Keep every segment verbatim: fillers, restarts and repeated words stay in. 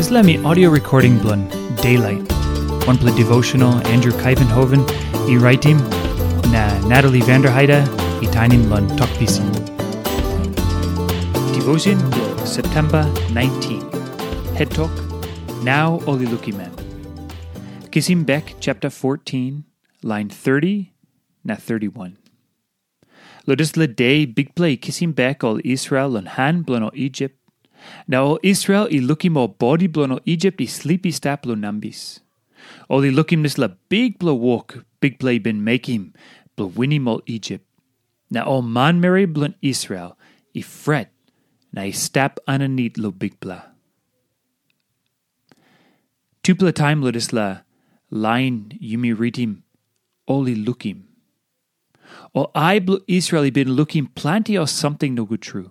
Dispela mi audio recording bilong Daylight, wanpela devotional Andrew Kaivenhoven i raitim, na Natalie Vanderheide i tainim long Tok Pisin. Devotion bilong September nineteen. Het tok, Nau ol i lukim em. Kisim bek chapter fourteen, line thirty na thirty-one. Long dispela de Bikpela i kisim bek ol Israel long han bilong ol Isip. Na ol Israel i lukim ol bodi bilong ol Isip i slip i stap long nambis. Ol i lukim dispela bikpela wok Bikpela i bin mekim bilong winim ol Isip. Na ol manmeri bilong Israel i fret na i stap aninit long Bikpela. Tupela taim long dispela lain yumi ritim, ol i lukim. Ol ai bilong Israel i bin lukim planti ol samting nogut tru.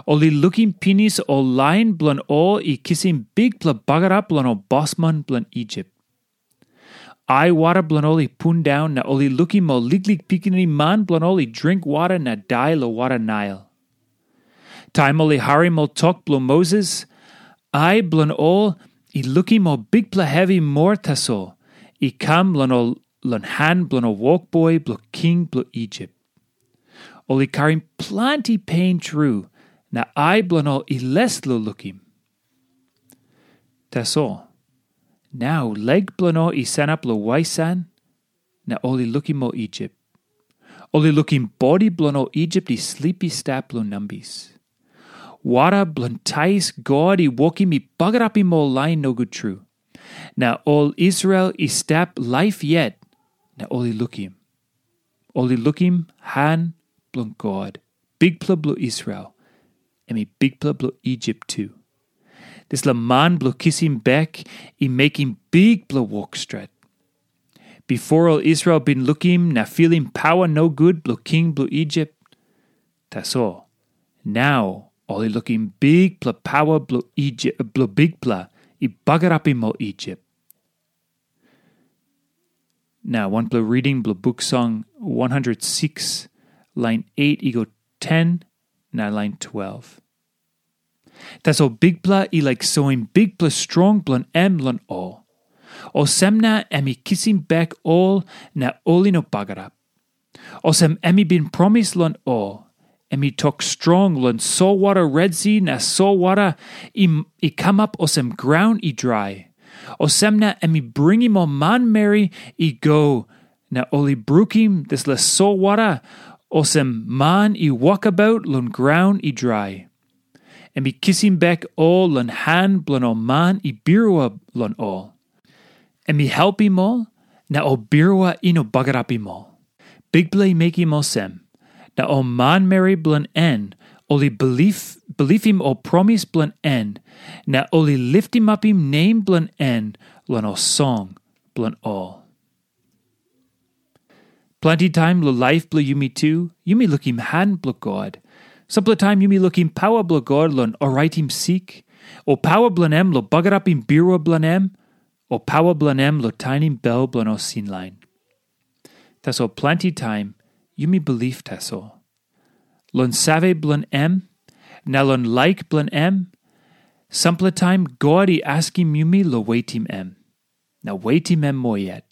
Ol i lukim pinis ol lain bilong ol i kisim bikpela bagarap long ol bosman bilong Isip. Ai wara bilong ol i pundaun na ol i lukim ol liklik pikinini man bilong ol i dring wara na dai long wara Nail. Taim ol i harim ol tok bilong Moses, ai bilong ol i lukim ol bikpela hevi moa tasol i kam long ol long han bilong ol wokboi bilong king bilong Isip. Ol i karim planti pen tru, na ai bilong ol i les long lukim. Tasol, nau lek bilong ol i sanap long waisan, na ol i lukim ol Isip. Ol i lukim bodi bilong ol Isip i slip i stap long nambis. Wara bilong tais God i wokim i bagarapim ol lain nogut tru. Na ol Israel i stap laip yet, na ol i lukim. Ol i lukim han bilong God, Bikpela bilong Israel, em i Bikpela bilong Isip tu. Dispela man bilong kisim bek i mekim bikpela wok stret. Bipo ol Israel bin lukim na filim pawa nogut bilong king bilong Isip. Tasol, nau ol i lukim bikpela pawa bilong Isip, bilong Bikpela i bagarapim ol Isip. Na wanpela reading bilong buk song one hundred six, lain eight i go ten, na lain twelve. Tasol Bikpela i laik soim bikpela strong bilong em long ol. Olsem na em i kisim bek ol na ol i no bagarap. Olsem em i bin promis long ol, em i tok strong long solwara Red Si na solwara i, i kamap olsem graun i drai. Olsem na em i bringim ol manmeri i go, na ol i brukim dispela solwara olsem man i wokabaut long graun i drai. Em i kisim bek ol long han bilong ol man i birua long ol. Em i helpim ol, na ol birua i no bagarapim ol. Bikpela i mekim olsem, na ol manmeri bilong en ol i bilip, bilipim ol promis bilong en, na ol i litimapim nem bilong en long ol song bilong ol. Planti taim long laip bilong yumi tu, yumi lukim han bilong God. Sampela taim yumi lukim pawa bilong God long oraitim sik, o pawa bilong em long bagarapim birua bilong em, o pawa bilong em long tainim bel bilong ol sin lain. Tasol planti taim yumi bilip tasol. Long save bilong em, na long laik bilong em, sampela taim God i askim yumi long wetim em. Na wetim em moa yet.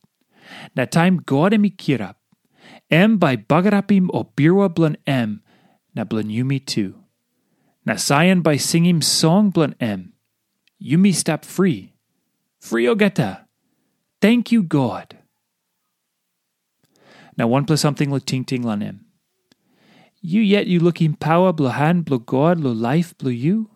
Na taim God em i kirap, em bai bagarapim ol birua bilong em na bilong yumi tu. Na Saion bai singim song bilong em. Yumi stap fri. Fri olgeta. Tenkyu God. Na wanpela samting long tingting long em. Yu yet yu lukim pawa bilong han bilong God long laip bilong yu?